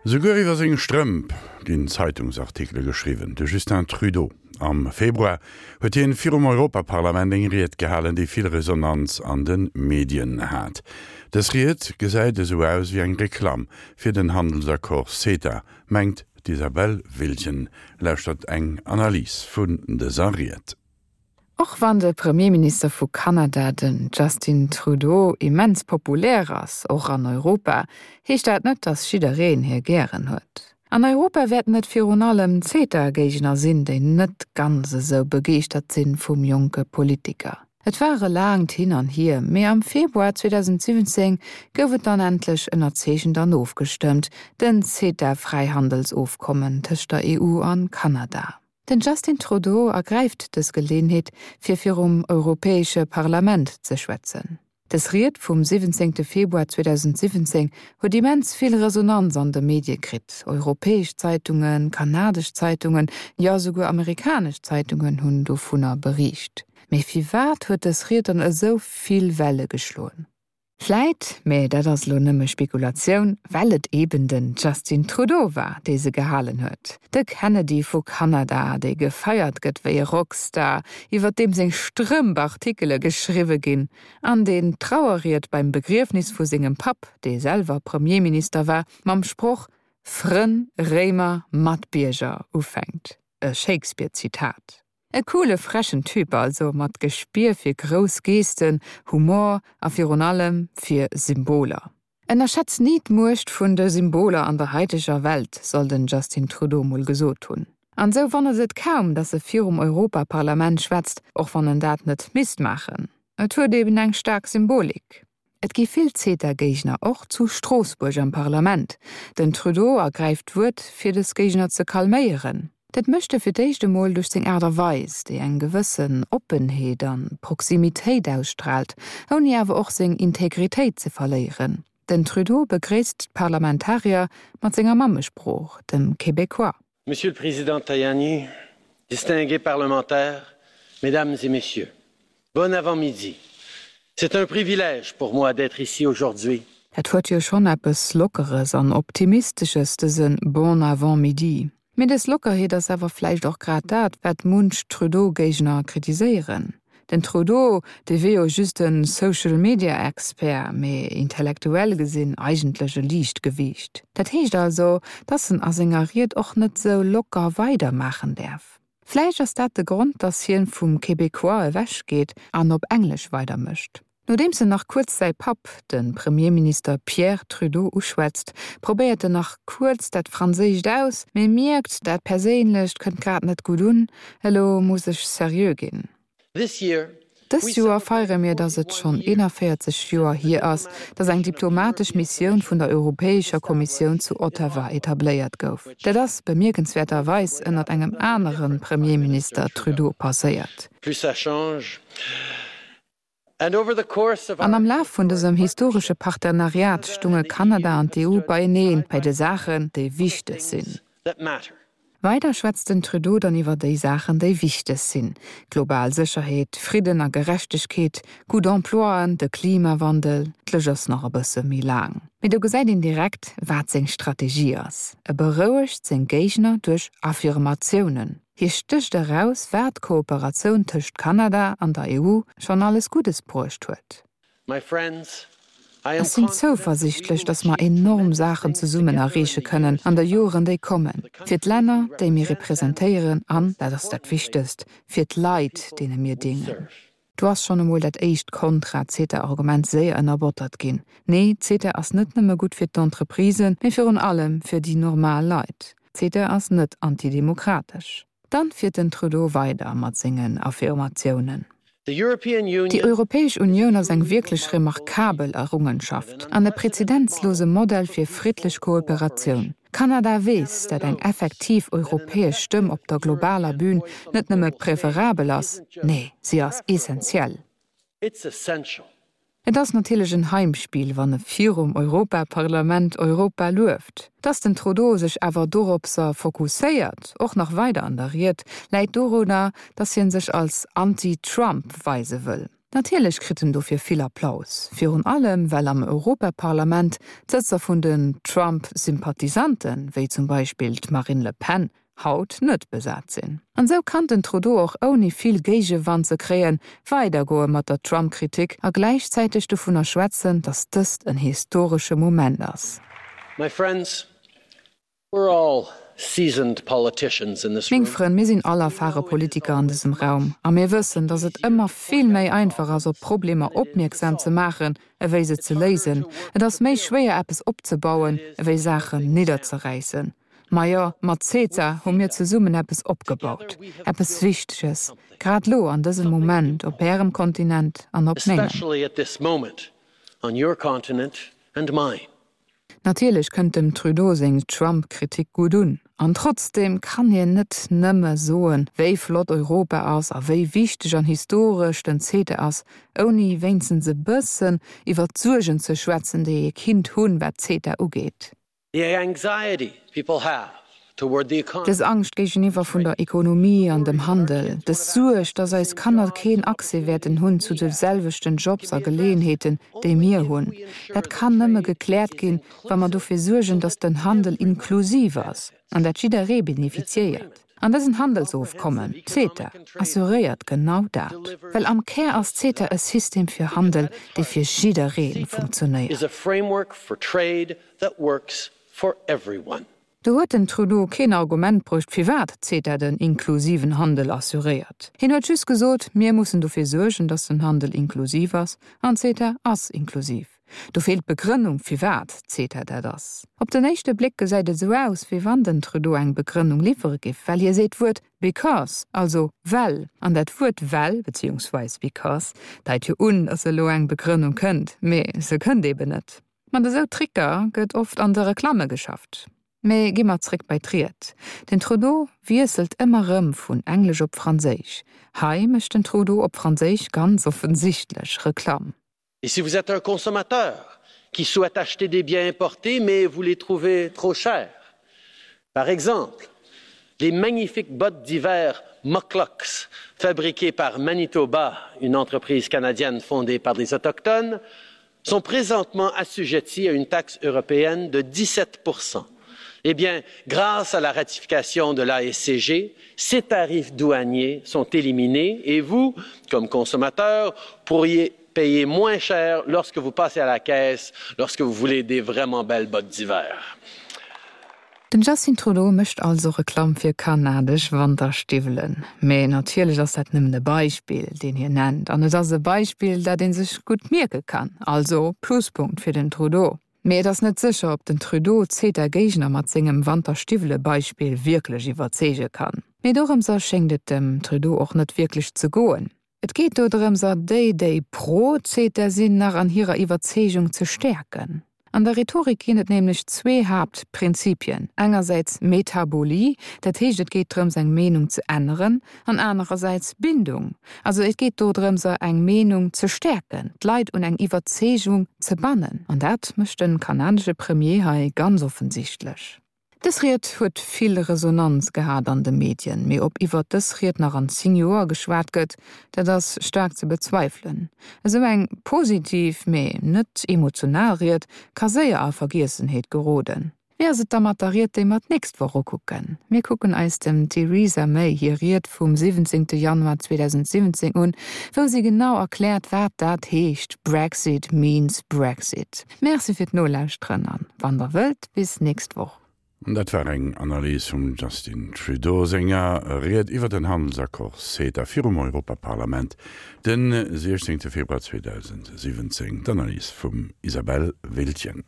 Esouguer iwwer seng Strëmp ginn Zeitungsartikele geschriwwen. De Justin Trudeau. Am Februar huet hien virum Europaparlament eng Ried gehalen, déi vill Resonanz an de Medien hat. Dës Ried gesäit esou aus wéi eng Reklamm fir den Handelsaccord CETA, mengt d'Isabelle Wiltgen. Lauschtert eng Analys vun dëser Ried. Och wann de Premierminister vu Kanada, den Justin Trudeau, immens populär ass, och an Europa, heescht dat net, datt jiddereen hie gären huet. An Europa wäerten et virun allem d'CETA-Géigner sinn, déi net ganz esou begeeschtert sinn vum jonke Politiker. Et war e laangt Hin an Hier, mee am Februar 2017 gouf et dann endlech ënnerzeechent an ofgestëmmt, den CETA-Fräihandelsofkommen tëscht der EU an Kanada. Den Justin Trudeau ergräift dës Geleeënheet, fir virum Europäesche Parlament ze schwätzen. Dës Ried vum 17 Februar 2017 huet immens vill Resonanz an de Medie kritt. Europäesch Zeitungen, kanadesch Zeitungen, jo esouguer amerikanesch Zeitungen hunn dovunner beriicht. Mee firwat huet dës Ried dann esou vill Welle geschloen? Vläit, mä dat ass elo nëmme Spekulatioun, well et eben den Justin Trudeau war, dee se gehalen huet. De Kennedy vu Kanada, dee gefeiert gëtt wéi e Rockstar, iwwer deem seng Strëmp Artikele geschriwwe ginn, an deen d'Trauerried beim Begriefnis vu sengem Papp, dee selwer Premierminister war, mam Sproch Frënn, Réimer, Matbierger ufänkt, e Shakespeare-Zitat. E coole frechen Typ also, mat Gespier fir grouss Gesten, Humor a virun allem fir Symboler. Ënnerschätz ni d'Muecht vun de Symboler an der haiteger Welt, soll den Justin Trudeau mol gesot hunn. An sou wonnert et kaum, dass e virum Europaparlament schwätzt, och wann en dat net misst maachen. Et huet eben eng staark Symbolik. Et gi vill CETA-Géigner, och zu Stroossbuerg am Parlament. Den Trudeau ergräift d'Wuert, fir dës Géigner ze calméieren. Dat mécht e fir d'éischt emol duerch seng Aart a Weis, déi eng gewëssen Oppenheet an Proximitéit ausstraalt, ouni awer och seng Integritéit ze verléieren. Den Trudeau begréisst d'Parlamentarier mat senger Mammesprooch, dem Québécois. Monsieur le Président Tajani, distingués parlementaires, Mesdames et Messieurs, bon avant-midi. C'est un privilège pour moi d'être ici aujourd'hui. Dat huet jo schonn eppes Lockeres an Optimistesches, dëse Bon avant-midi. Mee dës Lockerheet ass awer vläicht och grad dat, wat munch Trudeau-Géigner kritiséieren. Den Trudeau, dee wier jo just e Social-Media-Expert, mee intellektuell gesinn eigentlech e Liichtgewiicht. Dat heescht also, dass en a senger Ried och net sou locker weidermaachen däerf. Vläicht ass dat de Grond, dass hien vum Québécois ewech geet an op Englesch weidermécht. Nodeems en nach kuerz säi Papp, de Premierminister Pierre Trudeau uschwätzt, probéiert en nach kuerz dat Franséischt aus, mee mierkt, dat Perséinlecht kënnt grad net gutt un, elo muss ech seriö ginn. Dëst Joer feiere mir, datt et schonn 41 Joer hier ass, datt eng diplomatesch Missioun vun der Europäescher Kommissioun zu Ottawa etabléiert gouf. Dat ass bemierkenswäerterweis ënnert engem anere Premierminister Trudeau passéiert. An am Laf vun dësem historesche Partenariat stunge Kanada an d'EU beienee bei de Saachen, déi wichteg sinn. Weider schwätzt den Trudeau dann iwwer déi Saachen, déi wichteg sinn, global Sécherheet, Fridden a Gerechtegkeet, gutt Emploien, de Klimawandel. D'Lëscht ass nach e bësse méi laang. Mee do gesäit een direkt, wat seng Strategie ass, E berouegt seng Géigner duerch Affirmatiounen. Hie stécht eraus, wat d'Kooperatioun tëscht Kanada an der EU schonn alles Guddes bruecht huet. Ech sinn zouversiichtlech, datt mer enorm Saachen zesummen erreeche kënnen an de Joren, déi kommen, fir d'Länner, déi mir representéieren an, dat ass dat Wichtegst, fir d'Leit, deene mir déngen. Do ass schonn emol dat éischt Kontra-CETA-Argument séier ënnerbottert ginn, Nee, CETA ass net nëmme gutt fir d'Entreprisen, mee virun allem fir déi normal Leit. CETA ass net antidemokratesch. Dann fiert den Trudeau weider mat sengen Affirmatiounen. Déi Europäesch Unioun ass eng wierklech remarkabel Errungenschaft an e prezedenzlose Modell fir friddlech Kooperatioun. Kanada weess, dat eng effektiv europäesch Stëmm op der globaler Bühn net nëmme preferabel ass, nee, si ass essentiell. Et ass natierlech en Heimspiel, wann e virum Europaparlament Europa lueft. Dass den Trudeau sech awer doropser fokusséiert, och nach weider an der Ried, läit dorunner, dass hien sech als Anti-Trump weise wëll. Natierlech kritt en dofir vill Applaus, virun allem well am Europaparlament d'Sëtzer vun den Trump-Sympathisanten, wéi zum Beispill d'Marine Le Pen, haut net besat sinn. An esou kann den Trudeau och ouni vill Géigewand ze kréien, weidergoe mat der Trump-Kritik a gläichzäiteg dovunner schwätzen, datt dëst en historesche Moment ass. My friends, We're all seasoned politicians in this Meng room. Frënn, mir sinn all erfare Politiker an dësem Raum a mir wëssen, datt et ëmmer vill méi einfach ass, op Problemer opmierksam ze maachen, ewéi se ze léisen. Et ass méi schwéier, eppes opzebauen, ewéi Saachen nidderzeräissen. Majo, mat CETA hu mir zesummen eppes opgebaut, eppes Wichteges, grad elo an dësem Moment op Ärem Kontinent an op mengem. Especially at this moment on your continent and mine. Natierlech kënnt dem Trudeau seng Trump-Kritik gutt un. An trotzdeem kann hien net nëmme soen, wéi flott Europa ass a wéi wichteg an historesch den CETA ass, ouni wéinstens e bëssen iwwer d'Suergen ze schwätzen, déi ee kinnt hunn, wat CETA ugeet. The anxiety people have toward the economy. Dës Angscht géigeniwwer vun der Ekonomie an dem Handel, dës Suerg, dass eis Kanner keen Accès wäerten hunn zu de selwechten Jobs a Geleeënheeten, déi mir hunn, dat kann nëmme gekläert ginn, wa mer dofir suergen, dass den Handel inklusiv ass an dat jidderee beneficiéiert. An dësen Handelsofkommen, CETA, assuréiert genau dat. Well am Kär ass CETA e System fir Handel, dee fir jidderee funktionéiert. Do huet den Trudeau keen Argument bruecht, firwat CETA den inklusiven Handel assuréiert. Hien huet just gesot, mir mussen dofir suergen, datt den Handel inklusiv ass, an CETA ass inklusiv. Do feelt d'Begrënnung, firwat CETA dat ass. Op den éischte Bléck gesäit et esou aus, wéi wann den Trudeau eng Begrënnung liwwere giff, well hie seet d'Wuert because, also well. An dat Wuert well, beziehungsweis because, deit jo un, datt elo eng Begrënnung kënnt, mee se kënnt eben net. Mat esou Tricker gëtt oft an de Reklamme geschafft. Mee gi mer zréck bei d'Ried. Den Trudeau wiesselt ëmmer rëm vun Englesch op Franséisch. Hei mécht den Trudeau op Franséisch ganz offensichtlech Reklamm. Et si vous êtes un consommateur qui souhaite acheter des biens importés mais vous les trouvez trop chers, par exemple les magnifiques bottes d'hiver Moclux fabriquées par Manitoba, une entreprise canadienne fondée par des autochtones, sont présentement assujettis à une taxe européenne de 17 Eh bien, grâce à la ratification de l'ASCG, ces tarifs douaniers sont éliminés et vous, comme consommateur, pourriez payer moins cher lorsque vous passez à la caisse, lorsque vous voulez des vraiment belles bottes d'hiver. Den Justin Trudeau mécht also Reklamm fir kanadesch Wanterstiwwelen. Mee natierlech ass dat nëmmen e Beispill, deen hien nennt. An et ass e Beispill, dat ee sech gutt mierke kann. Also Pluspunkt fir den Trudeau. Mee et ass net sécher, ob den Trudeau d'CETA-Géigner mat sengem Wanterstiwwele-Beispill wierklech iwwerzeege kann. Mee dorëmser schéngt et dem Trudeau och net wierklech ze goen. Et geet dodrëmser, déi, déi pro CETA sinn, nach an hirer Iwwerzeegung ze stäerken. An der Rhetorik ginn et nämlech zwee Haaptprinzipien, engersäits Metabolie, dat heescht et geet drëms eng Meenung ze änneren, an anerersäits Bindung, also et geet dodrëmser eng Meenung ze stäerken, d'Leit un eng Iwwerzeegung ze bannen. An dat mécht de kanadesche Premier hei ganz offensichtlech. Dës Ried huet vill Resonanz gehat an de Medien, mee ob iwwert dës Ried nach an 10 Joer geschwat gëtt, dat ass staark ze bezweifelen. Esou eng positiv, mee net emotional Ried ka séier a Vergiessenheet geroden. Wéi ass et da mat der Ried, déi mer d'nächst Woch ukucken? Mir kucken eis dem Theresa May hir Ried vum 17 Januar 2017 un, wou si genau erkläert, wat dat heescht, Brexit means Brexit. Merci fir d'Nolauschteren an wann der wëllt, bis nächst Woch. Dat war eng Analys vum Justin Trudeau senger Ried iwwer den Handelsaccord CETA virum Europaparlament de 16 Februar 2017. D'Analys vum Isabelle Wiltgen.